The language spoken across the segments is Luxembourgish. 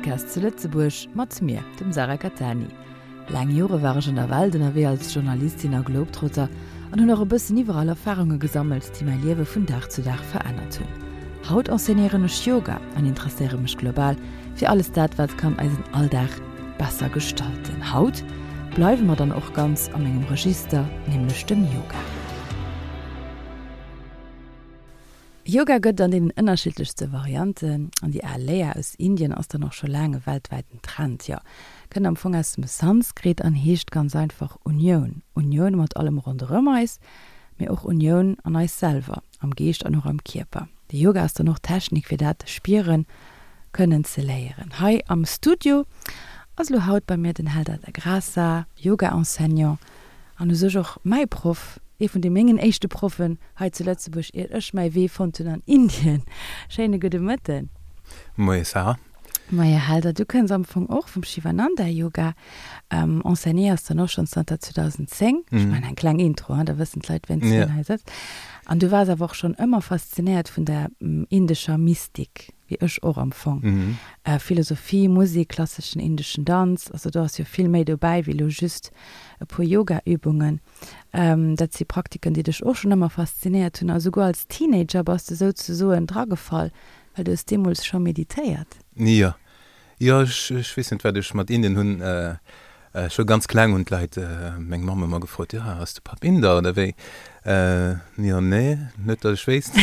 Podcast zu Lëtzebuerg mat mir, dem Sarah Cattani. Laang Jore war ech an der Welt ënnerwee als Journalistin a Globetrotter an hunn och e bëssen iwwerall Erfarunge gesammelt, déi mäi Liewe vun Dag zu Dag verännert hunn. Haut enseignéieren ech Yoga an interesséiere mech global fir alles dat, wat kann eisen Alldag besser gestalten. Haut bleiwe mer dann och ganz a mengem Register, nämlech dem Yoga. Yoga gëtt et an deenen ënnerschiddlechste Varianten, an déi al Léier aus Indien ass dann och scho laang e weltwäiten Trend. Jo, kënnt am Fong aus dem Sanskrit an heescht ganz einfach Unioun. Unioun mat allem ronderëm eis, mee och Unioun an eis selwer, am Geescht an och am Kierper. De Yoga ass dann och d'Technik fir dat spieren kënnen ze léieren. Hei am Studio ass elo haut bei mir den Helder da Graça, Yoga-Enseignant An u sech och mäi Proff, ee vun de mengen éischte Proffen hei zu Lëtzebuerg, iert ech mäi Wee fonnt hunn an Indien. Schéine gudde Mëtten. Moie Sarah. Moie Helder, du kënns am Fong och vum Shivananda Yoga, enseignéiers dann och schonn zanter 2010. Ech maachen eng kleng Intro, da wëssen d'Leit, wien wien hei sëtzt. An du waars awer och schonn ëmmer faszinéiert vun der indescher Mystik. wéi ech och am Fong. Philosophie, Musik, klasseschen indeschen Danz, also do ass jo vill méi dobäi wéi elo just e puer Yoga-Übungen. Dat si Praktiken, déi dech och schonn ëmmer faszinéiert hunn a souguer als Teenager bass de souzesoen dragefall, well du hues deemools scho meditéiert. Jo, Jo, ech weess net, wat ech mat Indien hunn. Scho ganz kleng hunn d'Leit meng Mamm ëmmer gefrot, Jo, ass de Papp Inder oder wéi? Jo, nee, net datt ech wéisst.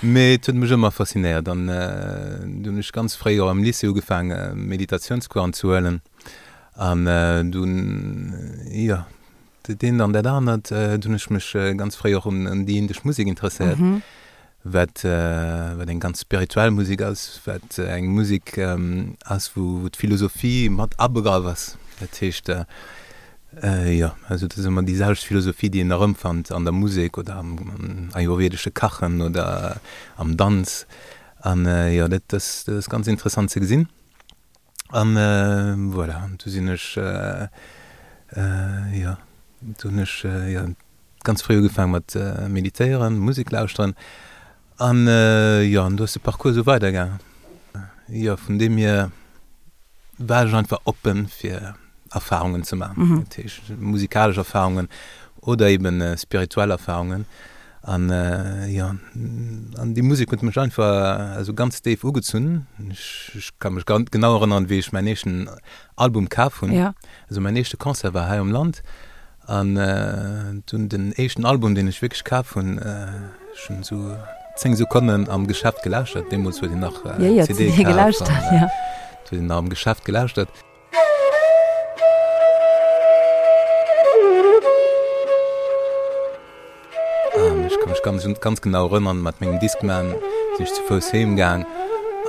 Mee et huet mech ëmmer faszinéiert an du hunn ech ganz fréi och am Lycée ugefaang Meditatiounscoursen ze huelen an dunn, jo, dat eent an dat anert. Du hunn ech mech ganz fréi och un déi indesch Musek interesséiert. Wat wat eng ganz spirituell Musek ass, wat eng Musek ass, wou d'Philosophie mat abegraff ass. Dat heescht, jo, also dat ass ëmmer déi selwecht Philosophie, déi een erëmfannt an der Musek oder am ayurvedesche Kachen oder am Danz. An jo, dat ass dat ass ganz interessant ze gesinn. An voilà, an du sinn ech, jo, du hunn ech, jo, ganz fréi ugefaang mat meditéieren, Musek lauschteren an jo, an do ass de Parcours esou weider gaangen. Jo, vun deem hier war ech einfach oppen fir Erfahrungen ze maachen, dat heescht musikalesch Erfahrungen oder eben spirituell Erfahrungen an jo, an déi Musek huet mech einfach esou ganz déif ugezunn. Ech ka mech ganz genau erënneren, wéi ech mäin éischten Album kaf hunn, also mäin éischte Concert war hei am Land An dunn den éischten Album, deen ech wierklech kaf hunn, ech hunn esou 10 Sekonnen am Geschäft gelauschtert, deemools huet een nach CD kaf, an huet een nach am Geschäft gelauschtert. An ech ka mech ganz, ganz genau erënnern, mat mengem Discman sinn ech zu Fouss heem gaang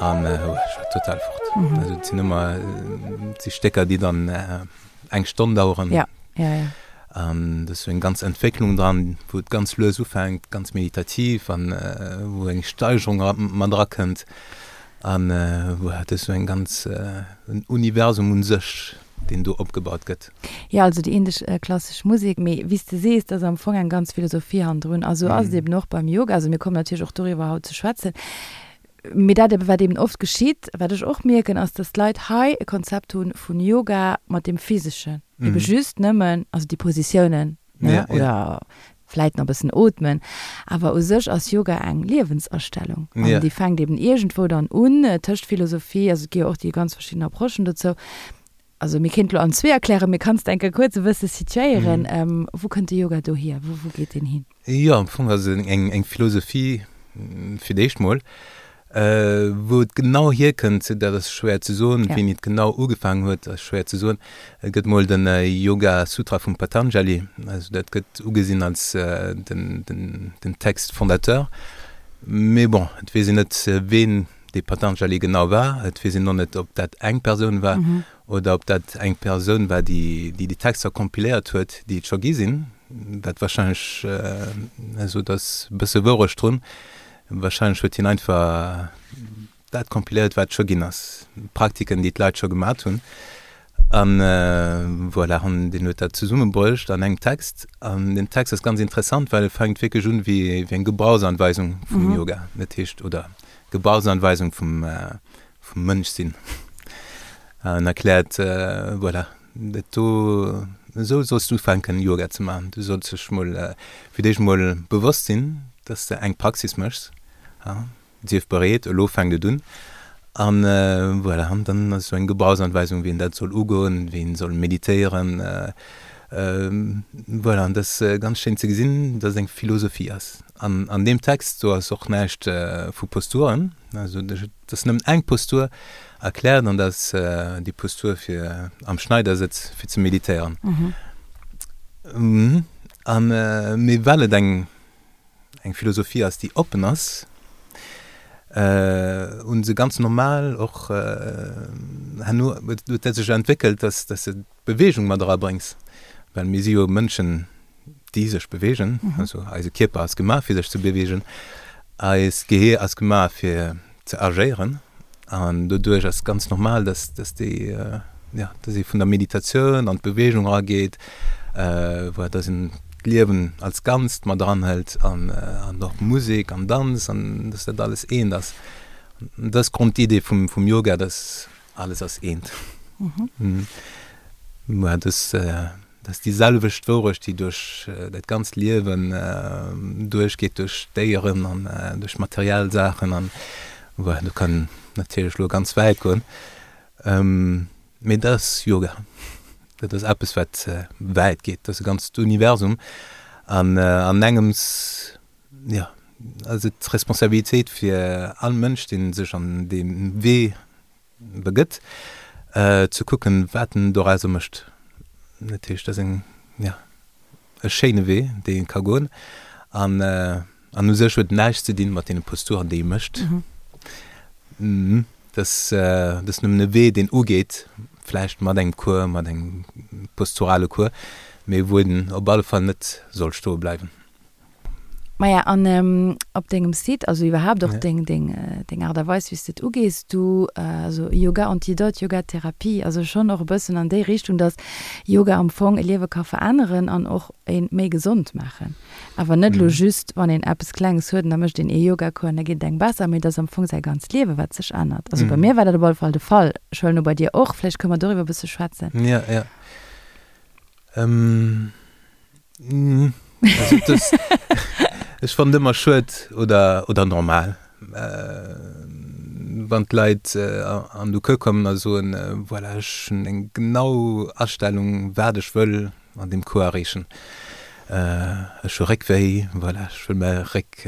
an ech war total fort. Also et sinn ëmmer, et si Stécker, déi dann eng Stonn daueren. Ja, ja, ja. An do ass sou eng ganz Entwécklung dran, wou et ganz lues ufänkt, ganz meditativ an wou eng Steigerung mat erakënnt. An voilà, dat ass sou eng ganz, en Universum un sech, deen do opgebaut gëtt. Jo, also déi indesch klassesch Musek, mee wéi s de sees, et ass am Fong eng ganz Philosophie hannendrun. A sou ass et eben och beim Yoga. Also mir kommen natierlech och doriwwer haut ze schwätzen. Mee dat ebe wat eben oft geschitt, wat ech och mierken, ass, dass d'Leit hei e Konzept hu vun Yoga mat deem Physeschen, ebe just nëmmen, also déi Positiounen, ne, oder vläit nach e bëssen ootmen, awer u sech ass Yoga eng Liewensastellung an déi fänkt eben iergendwou dann un, tëscht Philosophie, also et gi jo och déi ganz verschidden Approchen dozou. Also mir kéint lo an zwee erklären, mee kanns de eng Kéier kuerz e bësse situéieren, wou kënnt de Yoga dohier, wou wou geet deen hin? Jo, am Fong ass et eng eng Philosophie fir d'éischt mol. Wou et genau hierkënnt, dat ass schwéier ze soen. Wéini et genau ugefaangen huet, ass schwéier ze soen. Et gëtt mol de Yoga Sutra vum Patanjali, also dat gëtt ugesinn als den den den Text fondateur. Mee bon, et weess een net, ween dee Patanjali genau war. Et weess een och net, ob dat eng Persoun war oder ob dat eng Persoun war, déi déi Texter kompiléiert huet, déi et scho gi sinn, wat warscheinlech, also do ass e bësse Wourecht drun, warscheinlech huet hien einfach dat kompiléiert, wat et scho ginn ass, Praktiken, déi d'Leit scho gemat hunn. An voilà, an deen huet dat zesummebruecht an engem Text. An deen Text ass ganz interessant, well e fänkt wierklech un wéi eng Gebrauchsanweisung vum Yoga, dat heescht, oder Gebrauchsanweisung vum, vum Mënschsinn. En erkläert, voilà, dat do, esou solls du ufänken Yoga ze maachen. Du solls dech mol fir d'éischt mol bewosst sinn, dass de eng Praxis méchs. Sief bereet, elo fänkt et un. An voilà, an dann ass esou eng Gebrauchsanweisung, wéi een dat soll ugoen, wéi een soll meditéieren. Voilà, an dat ass ganz schéin ze gesinn, dass et eng Philosophie ass. An an deem Text do ass och näischt vu Posturen, also et ass nëmmen eng Postur erkläert an dat ass déi Postur fir am Schneidersëtz fir ze meditéieren. An mee well et eng eng Philosophie ass, déi oppen ass, hu se ganz normal och herno huet dat sech entwéckelt, dass dass de d'Beweegung mat erabréngs, well mir si jo Mënschen, déi sech beweegen, also eise Kierper ass gemaach fir sech ze beweegen, eist Gehier ass gemaach fir ze agéieren an doduerch ass ganz normal, dass dass déi ja dass ee vun der Meditatioun an d'Beweegung erageet, voilà, dass een d'Liewen als Ganzt mat eranhëlt an an och Musek an Danz an dass dat alles eent ass. Dat ass d'Grondidee vum vum Yoga, dass alles ass eent. Voilà, dass Dat ass déi selwecht Wourecht, déi duerch dat ganzt Liewen duerchgeet, duerch Déieren an duerch materiell Saachen an voilà, do kann een natierlech elo ganz wäit goen. Mee dat ass Yoga. Dat ass eppes, wat wäit geet. Dat ass e ganzt Universum an an engems, jo, ass et d'Responsabilitéit fir all Mënsch, dee sech an dee Wee begëtt, ze kucken, wat en dorauser mécht. Dat heescht, dat ass eng, jo, e schéine Wee, dee ee ka goen. An, an u sech huet en näischt ze dinn mat deene Posturen, déi ee mécht. Dat ass, dat ass nëmmen e Wee, deen ugeet, vläicht mat engem Cours, mat engem posturale Cours, mee wou een op alle Fall net soll stoe bleiwen. Maja, an op dengem Site, also iwwerhaapt och deng, deng, deng Aart a Weis, wéi s de et ugees, du, also Yoga Antidote, Yoga Therapie, also schonn och e bëssen an déi Richtung, dass Yoga am Fong e Liewe ka veränneren an och ee méi gesond maachen. Awer net elo just, wann een eppes Klenges huet an da mécht een ee Yogacours an da geet et engem besser, mee et ass am Fong säi ganzt Liewe, wat sech ännert. Also bei mir war dat op alle Fall de Fall. Ech huelen u bei dir och. Vläicht kënne mer doriwwer e bësse schwätzen. Ja, ja. Also das, ech fannen ëmmer schued oder, oder normal, wann d'Leit an de Cours kommen a soen, voilà, ech hunn eng genau Astellung, wat ech wëll an deem Cours erreechen. Ech hu Réckwéi, voilà, ech wëll mäi Réck,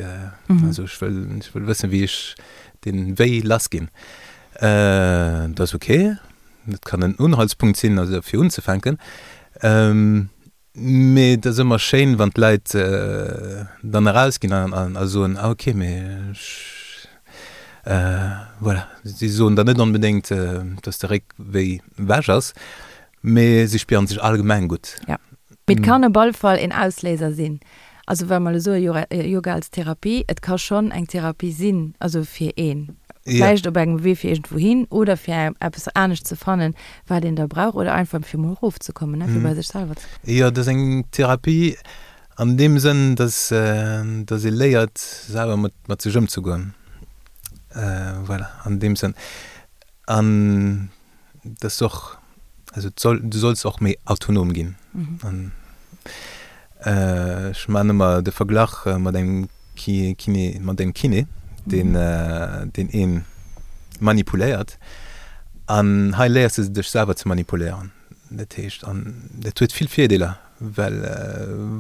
also ech wëll, ech wëll wëssen, wéi ech dee Wéi lass ginn. Dat ass ok, dat kann en Unhaltspunkt sinn, also fir unzefänken. Mee et ass ëmmer schéin, wann d'Leit dann erausginn a soen, ah ok, mee ech, voilà. Si soen dann net onbedéngt, dass de Réck wéi ewech ass, mee si spieren sech allgemeng gutt. Jo, mee et kann op alle Fall een Ausléiser sinn. Also wa mer elo soe Yoga als Therapie, et ka schonn eng Therapie sinn, also fir een vläicht op engem Wee fir iergendwou hin oder fir eppes anescht ze fannen, wat een da brauch oder einfach fir mol erofzekommen, ne, fir bei sech selwer ze kommen. Jo, dat ass eng Therapie an deem Sënn, dass dass ee léiert selwer mat mat sech ëmzegoen, voilà, an deem Sënn. An dass du och, also et soll, du solls och méi autonom ginn. An ech maachen ëmmer de Verglach mat engem Kiné, mat engem Kiné, deen, deen ee manipuléiert. An hei léiers de dech selwer ze manipuléieren. Dat heescht, an dat huet vill Virdeeler, well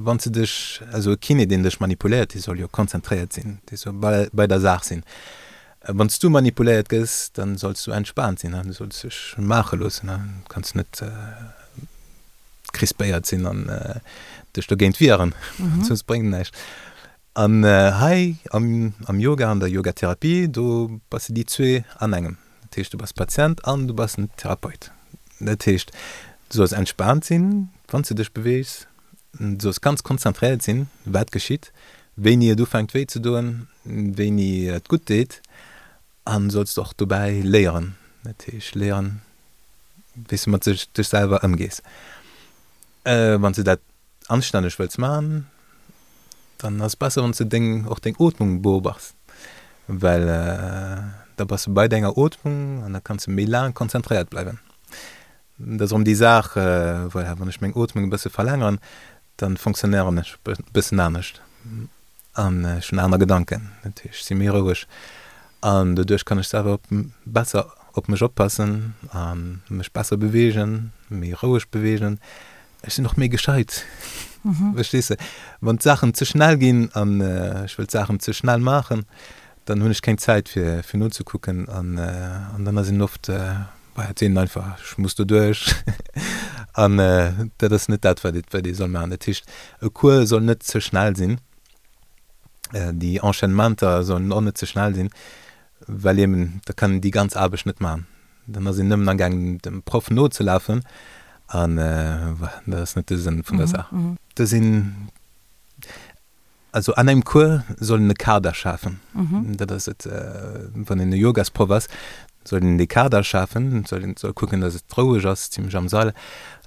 wann s de dech, also e Kiné, deen dech manipuléiert, dee soll jo konzentréiert sinn, dee soll bei der Saach sinn. Wann s du manipuléiert gëss, dann solls du entspaant sinn, du solls dech maache loossen, du kanns net crispéiert sinn an dech dogéint wieren, soss bréngt et näischt. An hei am Yoga, an der Yogatherapie, do bass de déi zwee an engem. Dat heescht, du bass Patient an du bass den Therapeut. Dat heescht, du solls entspaant sinn, wann s du dech beweegs, du solls ganz konzentréiert sinn, wat geschitt, wéini et ufänkt wéi ze doen, wéini et gutt deet an solls och dobäi léieren, dat heescht léieren wéi s de mat sech dech selwer ëmgees. Wann s de dat anstänneg wëlls man, dann ass et besser wann s de deng och deng Ootmung beobachs, well da bass de bei denger Ootmung an da kanns de méi laang konzentréiert bleiwen. Dat ass erëm déi Saach, voilà, wann ech meng Ootmung e bësse verlängeren, dann fonctionnéieren ech e bëssen anescht an ech hunn aner Gedanken. Dat heescht, ech si méi roueg an doduerch kann ech selwer besser op mech oppassen a mech besser beweegen, méi roueg beweegen. Ech sinn och méi gescheit, verstees de? Wann d'Saachen ze schnell ginn an ech wëll d'Saachen ze schnell maachen, dann hunn ech keng Zäit fir fir nozekucken an an dann ass een oft, bah, et seet een einfach, ech muss doduerch an dat ass net dat, wat ee wat ee soll maachen. Dat heescht, e Cours soll net ze schnell sinn, déi Enchaînementer sollen och net ze schnell sinn, well eben da kann een déi ganz Aarbecht net maachen. Dann ass een nëmmen amgaangen dem Proff nozelafen an voilà, dat ass net de Sënn vun der Saach. Do sinn, also an engem Cours soll een e Kader schafen, dat ass et, wann een e Yogasproff ass, soll een dee Kader schafen, soll een soll kucken, datt et roueg ass zimlech am Sall,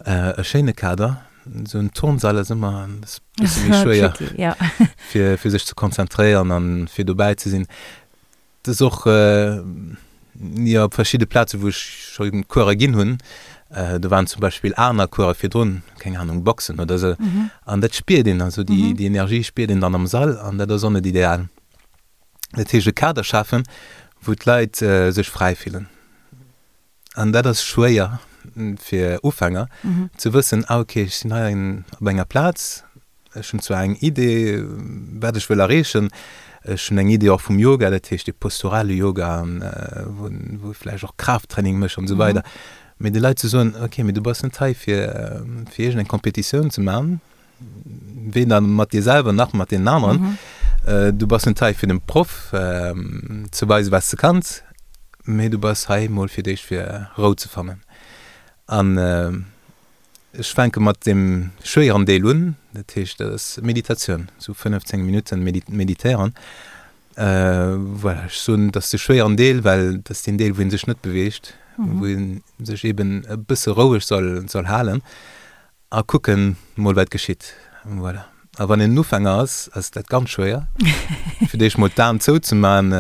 e schéine Kader, esou en Turnsall ass ëmmer e bësse méi schwéier fir fir sech ze konzentréieren an fir dobäi ze sinn. Et ass och, jo, op verschidde Plaze wou ech scho Course ginn hunn, do waren zum Beispill aner Course virdrun, keng Ahnung, Boxen oder esou, an dat spiert een, also déi déi Energie spiert een dann am Sall an dat ass och net ideal. Dat heescht e Kader schafen, wou d'Leit sech fräi fillen. An dat ass schwéier fir Ufänger ze wëssen, ah okay, ech sinn hei op enger Plaz, ech hunn zwar eng Idee, wat ech wëll erreechen, ech hunn eng Idee och vum Yoga, dat heescht dee posturale Yoga, wou wou vläicht och Kraafttraining mécht an esou weider, mee de Leit ze soen, okay, mee du bass net hei fir fir iergendeng Kompetitioun ze maachen, weder mat dir selwer nach mat deenen aneren. Du bass net hei fir dem Proff ze weisen, wat s de kanns, mee du bass hei mol fir d'éischt fir Rou ze fannen. An ech fänke mat deem schwéieren Deel un, dat heescht dat ass Meditatioun, sou 15 Minutten meditéieren. Voilà, ech soen, dat ass de schwéieren Deel, well dat ass deen Deel, wou ee sech net beweegt, wou ee sech eeben e bësse roueg soll halen. A kucken mol wat geschitt. Voilà. A wann een en Ufänger ass, ass dat ganz schwéier, fir d'éischt mol d'Aen zouzeman,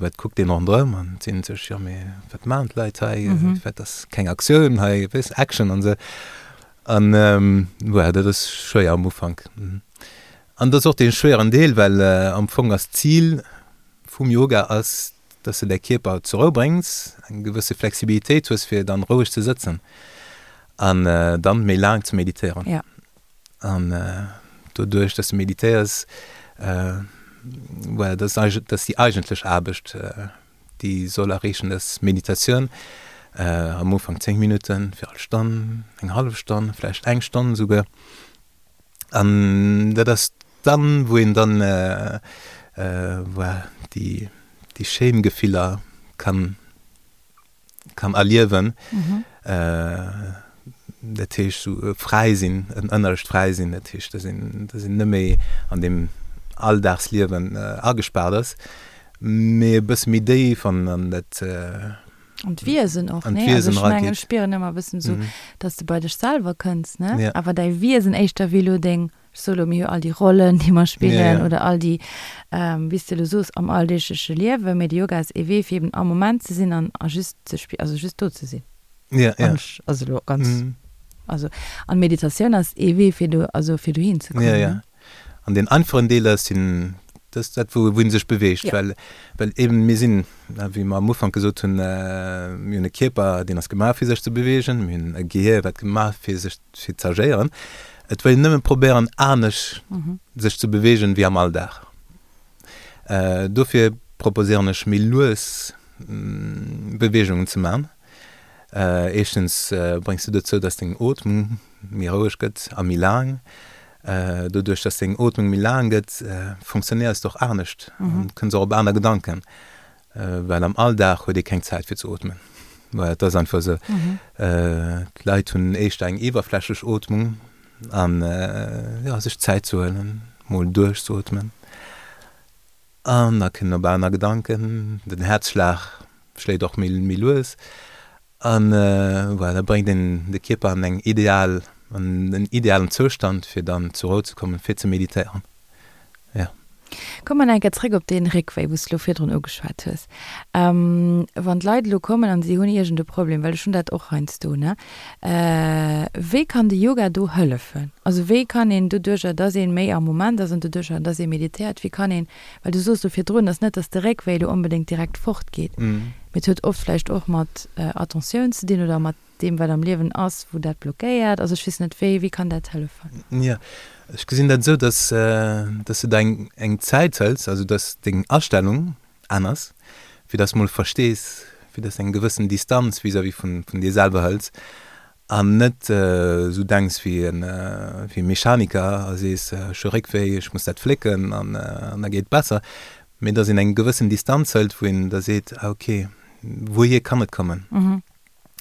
wat kuckt een ronderëm an seet sech, jo mee wat maachen d'Leit hei, wat ass keng Aktioun hei, weess, Action an esou. An voilà, dat ass schwéier am Ufank. An dat ass och dee schwéieren Deel, well am Fong ass d'Zil vum Yoga ass, dass de däi Kierper zur Rou bréngs, eng gewësse Flexibilitéit hues fir dann roueg ze sëtzen an dann méi laang ze meditéieren. Ja. An doduerch dass de meditéiers, voilà, dat ass eigentlech, dat ass déi eigentlech Aarbecht déi soll erreechen, dass Meditatioun am Ufank 10 Minutten, fir all Stonn, eng hallef Stonn, vläicht eng Stonn esouguer. An dat ass dann, wou een dann voilà, déi, déi schéin Gefiller kann, kann erliewen. Dat heescht esou e fräi sinn, en ënnerlecht fräi sinn. Dat heescht, dass een, dass een net méi an deem Alldagsliewen agespaart ass, mee e bësse méi déif an, an dat, An d'Wiesen och, ne? Also ech mengen, ech spieren ëmmer e bëssen esou, dass de bei dech selwer kënns, ne? Ja. Awer däi Wiesen éischter wéi elo deng, ech soe lo, mir hu all déi Rollen, déi mer spillen oder all déi, wéi s de elo soos, am alldeegleche Liewen. Mee de Yoga ass ee Wee, fir eben am Moment ze sinn an a just ze spi-, also just do ze sinn. Ja, ja. An ech, also elo ganz, also an d'Meditatioun ass ee Wee, fir do, also fir dohin ze kommen, Ja, ja. ne? An deen einfachen Deel ass den, dat ass dat, wou wou ee sech beweegt, Ja. well, well eben mir sinn, wéi mer am Ufank gesot hunn, mir hunn e Kierper, deen ass gemaach fir sech ze beweegen, mir hunn e Gehier, wat gemaach fir sech fir z'agéieren. Et wëll een nëmme probéieren anescht sech ze beweegen wéi am Alldag. Dofir proposéieren ech méi lues Beweegungen ze man. Éischtens bréngs du dozou, dass deng Ootmung méi roueg gëtt a méi laang. Doduerch, dass deng Ootmung méi laang gëtt, funktionéiers de och anescht an kënns och op aner Gedanken, well am Alldag huet ee keng Zäit fir ze ootmen. Voilà, et ass einfach esou. D'Leit hunn éischter eng iwwerflächlech Ootmung an jo, sech Zäit ze huelen, mol duerchzeootmen an da kënnen op aner Gedanken, den Häerzschlag schléit och méi lues an voilà, da bréngt een de Kierper an eng ideal, an en idealen Zoustand fir dann zur Rou ze kommen, fir ze meditéieren, jo. Komme mer nach eng Kéier zréck op dee Réckwéi, wou s de elo virdrun ugeschwat hues. Wann d'Leit elo kommen an si hunn iergend e Problem, well ech hunn dat och heiansdo, ne, wéi kann de Yoga do hëllefen? Also wéi kann een doduercher, dass ee méi am Moment ass an doduercher, dass ee meditéiert, wéi kann een, well du soos elo virdrun, ass net, dass de Réckwéi elo onbedéngt direkt fortgeet, mee et huet oft vläicht och mat Attentioun ze dinn oder mat deem wat am Liewen ass, wou dat blockéiert. Also ech weess net, wéi, wéi kann dat hëllefen? Jo, ech gesinn dat esou, dass, dass du der eng, eng Zäit hëls, also dass deng Astellung aner ass, fir dass mol verstees, fir dass eng gewëssen Distanz vis-à-vis vun, vun dir selwer hëls an net esou denks wéi en, wéi e Mechaniker a sees, ech hu Réckwéi, ech muss dat flécken an, an da geet et besser, mee dass een eng gewëssen Distanz hëlt, wou een da seet, ah okay, wouhier kann et kommen?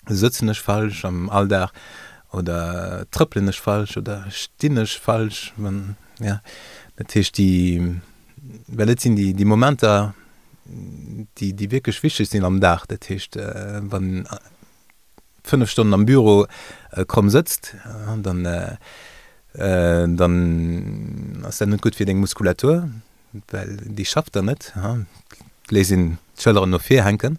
Sëtzen ech falsch am Alldag oder trëppelen ech falsch oder stinn ech falsch? Wann, ja, dat heescht déi, well et sinn déi, déi Momenter, déi, déi wierklech wichteg sinn am Dag. Dat heescht, wann een 5 Stonnen am Büro kromm sëtzt, dann, dann ass dat net gutt fir deng Muskulatur. Well déi schafft dann net. Et léisst een d'Schëlleren no vir hänken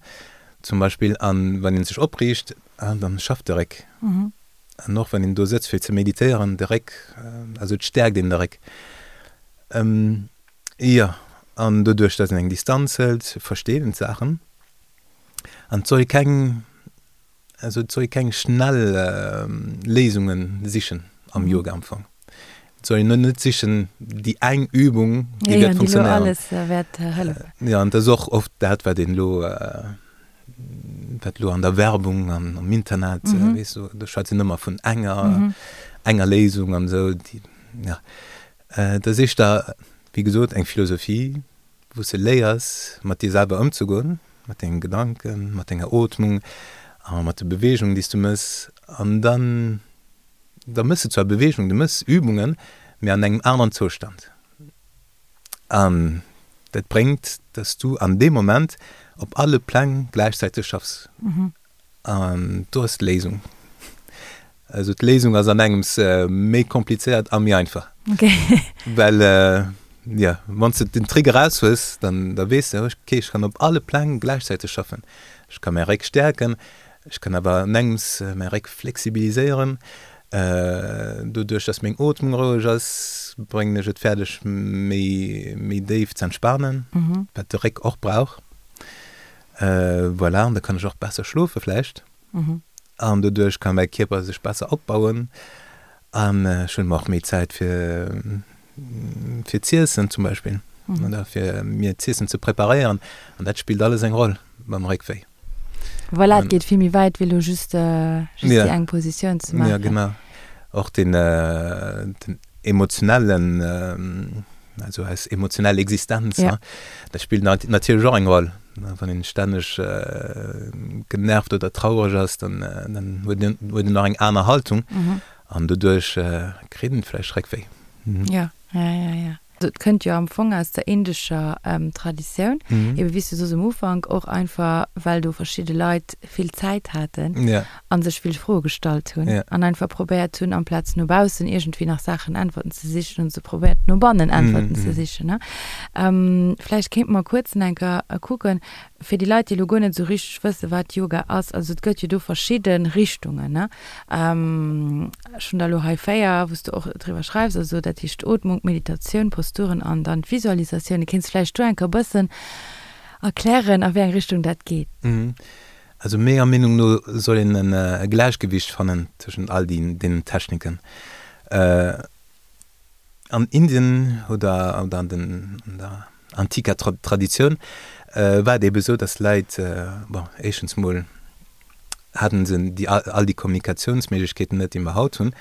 zum Beispill an wann een sech opriicht, dann schafft de Réck. An och wann een do sëtzt fir ze meditéieren, de Réck, also et stäerkt een de Réck. Jo, an doduerch datt een eng Distanz hëlt, versteet een d'Saachen an et soll ee keng Also et soll ee keng schnell Léisunge sichen am Yoga am Fong. Et soll een net sichen déi eng Übung, déi wäert funktionéieren. Déi elo alles wäert hëllefen. Jo, an dat ass och oft dat, wat een elo, wat elo an der Werbung an am Internet, weess du, do schwätzt een ëmmer vun enger, enger Léisung an esou, déi, ja. Dat ass éischter, wéi gesot, eng Philosophie, wou s de léiers mat dir selwer ëmzegoen, mat dengen Gedanken, mat denger Ootmung a mat de Beweegungen, déi s du mëss. An dann, da mëss de zwar Beweegungen, du mëss Übungen, mee an engem aneren Zoustand. An dat bréngt, dass du an deem Moment op alle Pläng gläichzäiteg schaffs. An do ass d'Léisung. Also d'Léisung ass an engems méi komplizéiert a méi einfach. Okay. Well, jo, wann s de den Trick eraus hues, dann da weess de, okay, ech kann op alle Pläng gläichzäiteg schaffen. Ech ka mäi Réck stäerken, ech kann awer an engems mäi Réck flexibiliséieren. Doduerch, dass meng Ootmung roueg ass, bréngen ech et fäerdeg, méi méi déif z'entspanen, wat de Réck och brauch. Voilà, an da kann ech och besser schlofe vläicht. An doduerch ka mäi Kierper sech besser opbauen. An ech hunn och méi Zäit fir fir z'iessen zum Beispill oder fir mir z'iessen ze preparéieren. An dat spillt alles eng Roll beim Réckwéi. Voilà, et geet vill méi wäit wéi elo just just déi eng Positioun ze maachen. Jo, genau. Och den den emotionellen, also eis emotionell Existenz, ja. Dat spillt natierlech och eng Roll. Wann een stänneg genervt oder traureg ass, dann, dann huet een, huet een och eng aner Haltung an doduerch kritt een vläicht Réckwéi. Ja, ja, ja, ja. Et kënnt jo am Fong aus der indescher Traditioun, ebe wéi s du soos um Ufank, och einfach well do verschidde Leit vill Zäit haten a sech vill Froe gestallt hunn an einfach probéiert hunn, amplaz no baussen iergendwéi nach Saachen, Äntwerten ze sichen, hunn se probéiert no bannen Äntwerten ze sichen. Vläicht kéinte mer kuerz nach eng Kéier kucken, fir déi Leit, déi elo guer net esou richteg wëssen, wat Yoga ass, also et gëtt jo do verschidde Richtungen, ne? Ech hunn der elo hei 4, wou s de och driwwer schreifs, also dat heescht d'Ootmung, d'Meditatioun, Posturen an dann d'Visualisatioun. Kéints vläicht do eng Kéier e bëssen erklären, a wéi eng Richtung dat geet? Also menger Meenung no soll een e Gläichgewicht fannen tëschent all deenen Techniken. An Indien oder an der antiker Traditioun war et ebe sou, datt Leit, bon, éischtens mol haten se déi all déi Kommunikatiounsméiglechkeeten net, déi mer haut hunn.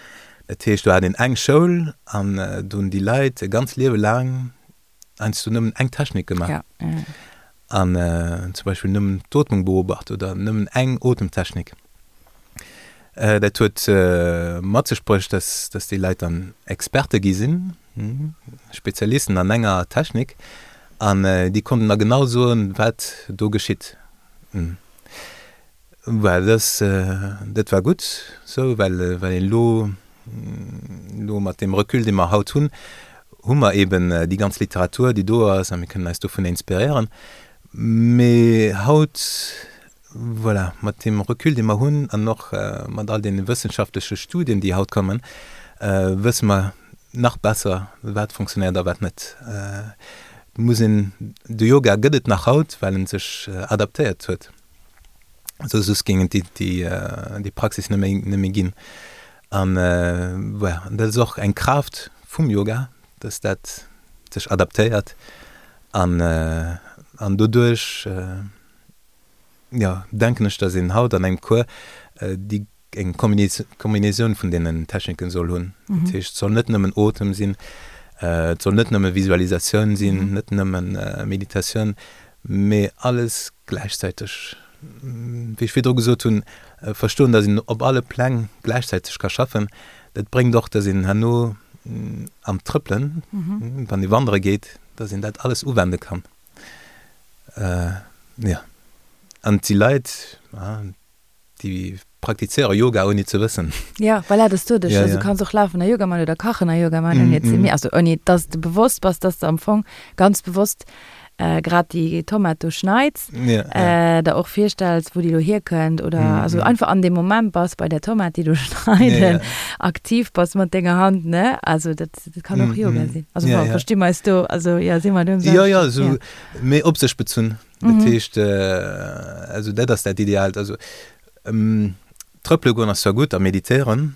Dat heescht, do hat een eng Schoul an do hunn déi Leit e ganz Liewe laang heiansdo nëmmen eng Technik gemaach an zum Beispill nëmmen d'Ootmung beobacht oder nëmmen eng Otemtechnik. Dat huet mat sech bruecht, dass dass déi Leit dann Experte gi sinn, Spezialisten an enger Technik an déi konnten da genau soen, wat do geschitt. Well dass dat war gutt sou, well well een elo elo mat deem Recul, dee mer haut hunn, hu mer eben déi ganz Literatur, déi do ass, a mir kënnen eis dovun inspiréieren. Mee haut, voilà, mat deem Recul, dee mer hunn, an och mat all deene wëssenschaftleche Studien, déi haut kommen, wësse mer nach besser, wat fonctionnéiert a wat net. Et muss een, de Yoga gëtt et nach haut, well en sech adaptéiert huet, soss géing et déi Praxis net méi, net méi ginn. An voilà, an dat ass och eng Kraaft vum Yoga, dass dat sech adaptéiert an, an doduerch, jo, denken ech, dass een haut an engem Cours déi eng Kombinatioun vun deenen Techniken soll hunn. Dat heescht, et soll net nëmmen Otem sinn, et soll net nëmme Visualisatioun sinn, net nëmmen Meditatioun, mee alles gläichzäiteg. Wéi ech virdru gesot hunn, verstoen, datt een op alle Pläng gläichzäiteg ka schaffen, dat bréngt och, datt een herno am Trëppelen, wann ee wandere geet, datt een dat alles uwende kann. Jo, an et si Leit, déi praktizéiere Yoga ouni ze wëssen. Ja, voilà, dass du dech, also du kanns och lafen a Yoga man oder kachen a Yoga man, ouni et ze mir, also ouni dass de bewosst bass, dass de am Fong ganz bewosst grad déi Tomat do schneits, der och virstells, wou déi lo hierkënnt oder also einfach an deem Moment bass bei där Tomat, déi do schneiden, aktiv bass mat denger Hand, ne? Also dat, dat kann och Yoga sinn. Also bon, versti mer eis do, also jo, si mer do um selwechten. Jo, jo, esou méi op sech bezunn. Dat heescht, also dat ass dat Ideaalt. Also trëppele goen ass zwar gutt a meditéieren,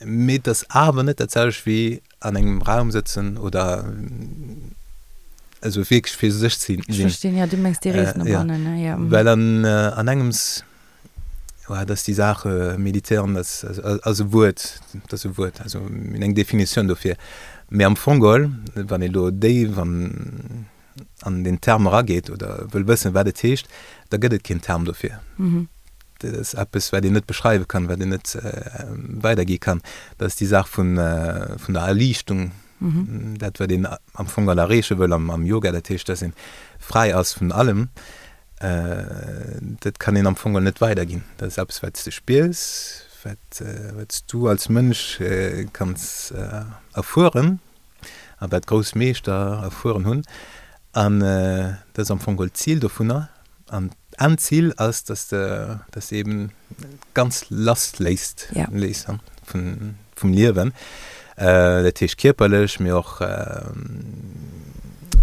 mee et ass awer net dat selwecht wéi an engem Raum sëtzen oder also wierklech fir sech ze sinn. Ech verstinn, jo, du mengs déi Rees no bannen, ne? Jo. Well an an engems, jo, dat ass déi Saach, meditéieren ass ass e Wuert, dat ass e Wuert, also mir hunn eng Definitioun dofir. Mee am Fong geholl, wann ee lo déif an an den Term erageet oder wëll wëssen, wat et heescht, da gëtt et keen Term dofir. Dat ass eppes, wat een net beschreiwe kann, wat een net weidergi kann. Dat ass déi Saach vun, vun der Erliichtung, dat, wat een am Fong all erreeche wëll am, am Yoga, dat heescht, dass een fräi ass vun allem. Dat kann een am Fong all net weiderginn. Dat ass eppes, wat s de spiers, wat, wat s du als Mënsch kanns erfueren. a wat grouss Meeschter erfueren hunn, an dat ass am Fong geholl d'Zil dovunner, an d'Endzil ass, dass de, dass de eben ganz lass léisst, léiss vun, vum Liewen, dat heescht kierperlech, mee och,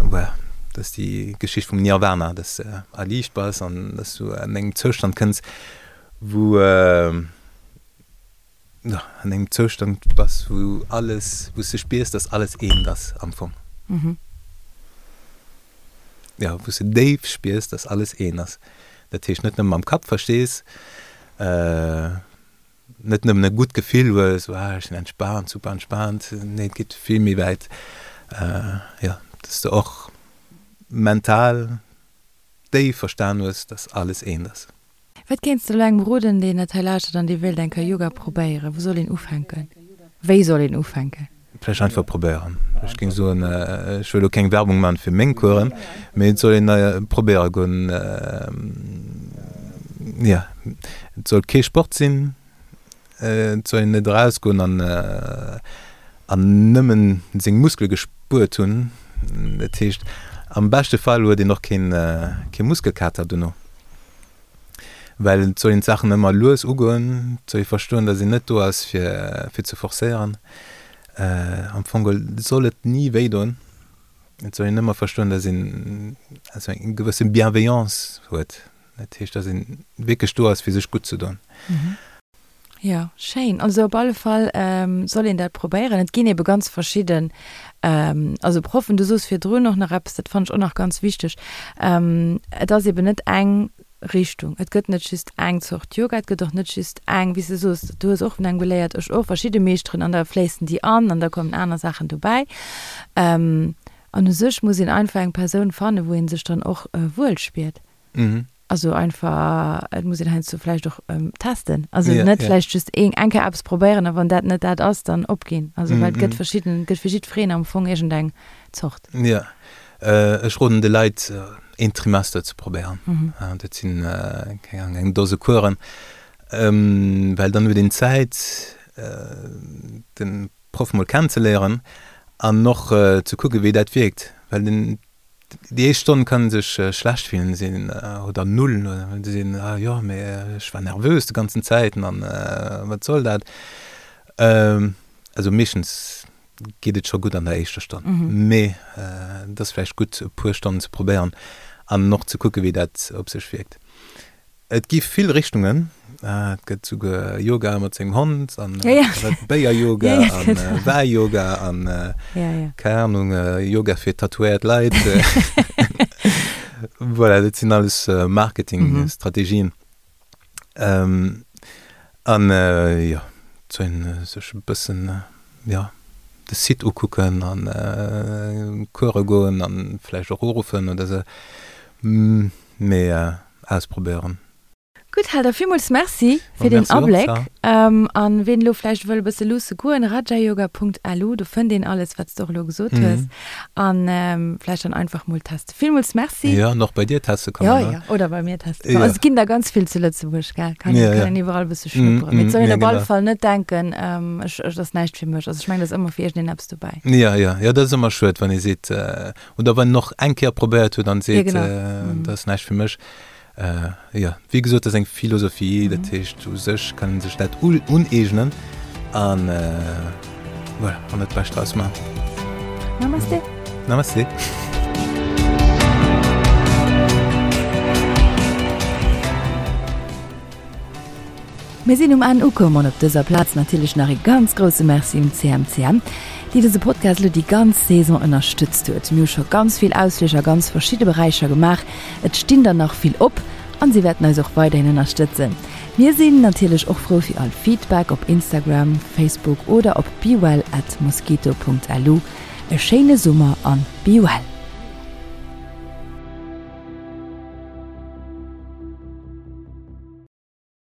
voilà, dat ass déi Geschicht vum Nirvana, dass de erliicht bass an dass du an engem Zoustand kënns, wou. An engem Zoustand bass, wou alles, wou s de spiers, dass alles eent ass am Fong. Jo, wou s de déif spiers, dass alles eent ass. Dat heescht net nëmme mam Kapp verstees, net nëmmen e gutt Gefill hues, ah ech sinn entspaant, super entspaant, nee et geet vill méi wäit, jo, dass de och mental déif verstan hues, dass alles eent ass. Wat kéints de elo engem roden, deen dat hei lauschtert an dee wéilt eng Kéier Yoga probéieren? Wou soll een ufänken? Wéi soll een ufänken? Vläicht einfach probéieren. Ech géing soen, ech wëll elo keng Werbung maachen fir meng Coursen, mee et soll een probéiere goen. Jo, et soll kee Sport sinn, et soll een net erausgoen an an nëmmen seng Muskele gespuert hunn. Dat heescht, am beschte Fall huet een och keen kee Muskelkater dono. Well et soll een d'Saachen ëmmer lues ugoen, et soll ee verstoen, datt een net do ass fir fir ze forcéieren. Am Fong geholl soll et ni wéi doen. Et soll een ëmmer verstoen, datt een also eng gewësse Bienveillance huet. Dat heescht, datt een wierklech do ass fir sech gutt ze doen. Jo, schéin. Also op alle Fall soll een dat probéieren. Et ginn ebe ganz verschidden, also Proffen. Du soos virdrun och nach eppes, dat fannen ech och nach ganz wichteg, Et ass eben net eng Richtung. Et gëtt net just eng Zort Yoga, et gëtt och net just eng, wéi s de soos, du hues och vun engem geléiert, ech och, verschidde Meeschteren an da fléissen déi an an da kommen aner Saachen dobäi. An u sech muss een einfach eng Persoun fannen, wou ee sech dann och wuel spiert. Also einfach, et muss een heiansdo vläicht och testen. Also net vläicht just eng Kéier eppes probéieren a wann dat net dat ass, dann opginn. Also well et gëtt verschidden, et gëtt fir jiddwereen am Fong iergendeng Zort. Jo, ech roden de Leit een Trimester ze probéieren. Dat sinn, keng Ahnung, eng Dose Coursen, well dann huet een Zäit den Proff mol kennenzeléieren. An och ze kucke wéi dat wierkt, well den déi éischt Stonn kann ee sech schlecht fillen, sinn oder null oder se sinn, ah jo mee ech war nervös de ganzen Zäiten an wat soll dat. Also meeschtens geet et scho gutt an der éischter Stonn, mee et ass vläicht gutt e puer Stonnen ze probéieren an och ze kucke wéi dat op sech wierkt. Et gi vill Richtungen, et gëtt souguer Yoga mat sengem Hond an Béier-Yoga an Wäi-Yoga an keng Ahnung, Yoga fir tatouéiert Leit. Voilà, dat sinn alles Marketing-Strategien. An jo, et soll een sech e bëssen, jo, de Site ukucken an Course goen an vläicht och uruffen oder sou, mee ausprobéieren. Gutt, Helder, villmools Merci fir deen Abléck. An ween elo vläicht wëll e bësse luusse goen, rajayoga.lu, do fënnt een alles, wat s de och elo gesot hues. An vläicht dann einfach mol testen. Villmools Merci. Jo, an och bei dir teste kommen, ne? Jo, jo, oder bei mir teste kommen. Also et ginn der ganz vill zu Lëtzebuerg, gell? Kann een, kann een iwwerall e bësse schnupperen. Mee et soll een op alle Fall net denken, ech, et ass näischt fir mech. Also ech mengen, et ass ëmmer fir iergendeen eppes dobäi. Jo, jo, jo, dat ass ëmmer schued, wann ee seet, Oder wann en och eng Kéier probéiert huet an seet, dat ass näischt fir mech. Jo, wéi gesot, dat ass eng Philosophie, dat heescht u sech kann ee sech dat uneegnen an voilà, an dat Bescht draus maachen. Namaste. Namaste. Mir sinn um Enn ukomm an op dëser Plaz natierlech nach ee ganz grousse Merci un d'CMCM, déi dëse Podcast elo déi ganz Saison ënnerstëtzt huet. Mir hu scho ganz vill Ausflich a ganz verschidde Beräicher gemaach, et stinn der nach vill op an si wäerten eis och weiderhin ënnerstëtzen. Mir sinn natierlech och frou fir all Feedback op Instagram, Facebook oder op bewell at mosquito.lu. E schéine Summer an be well!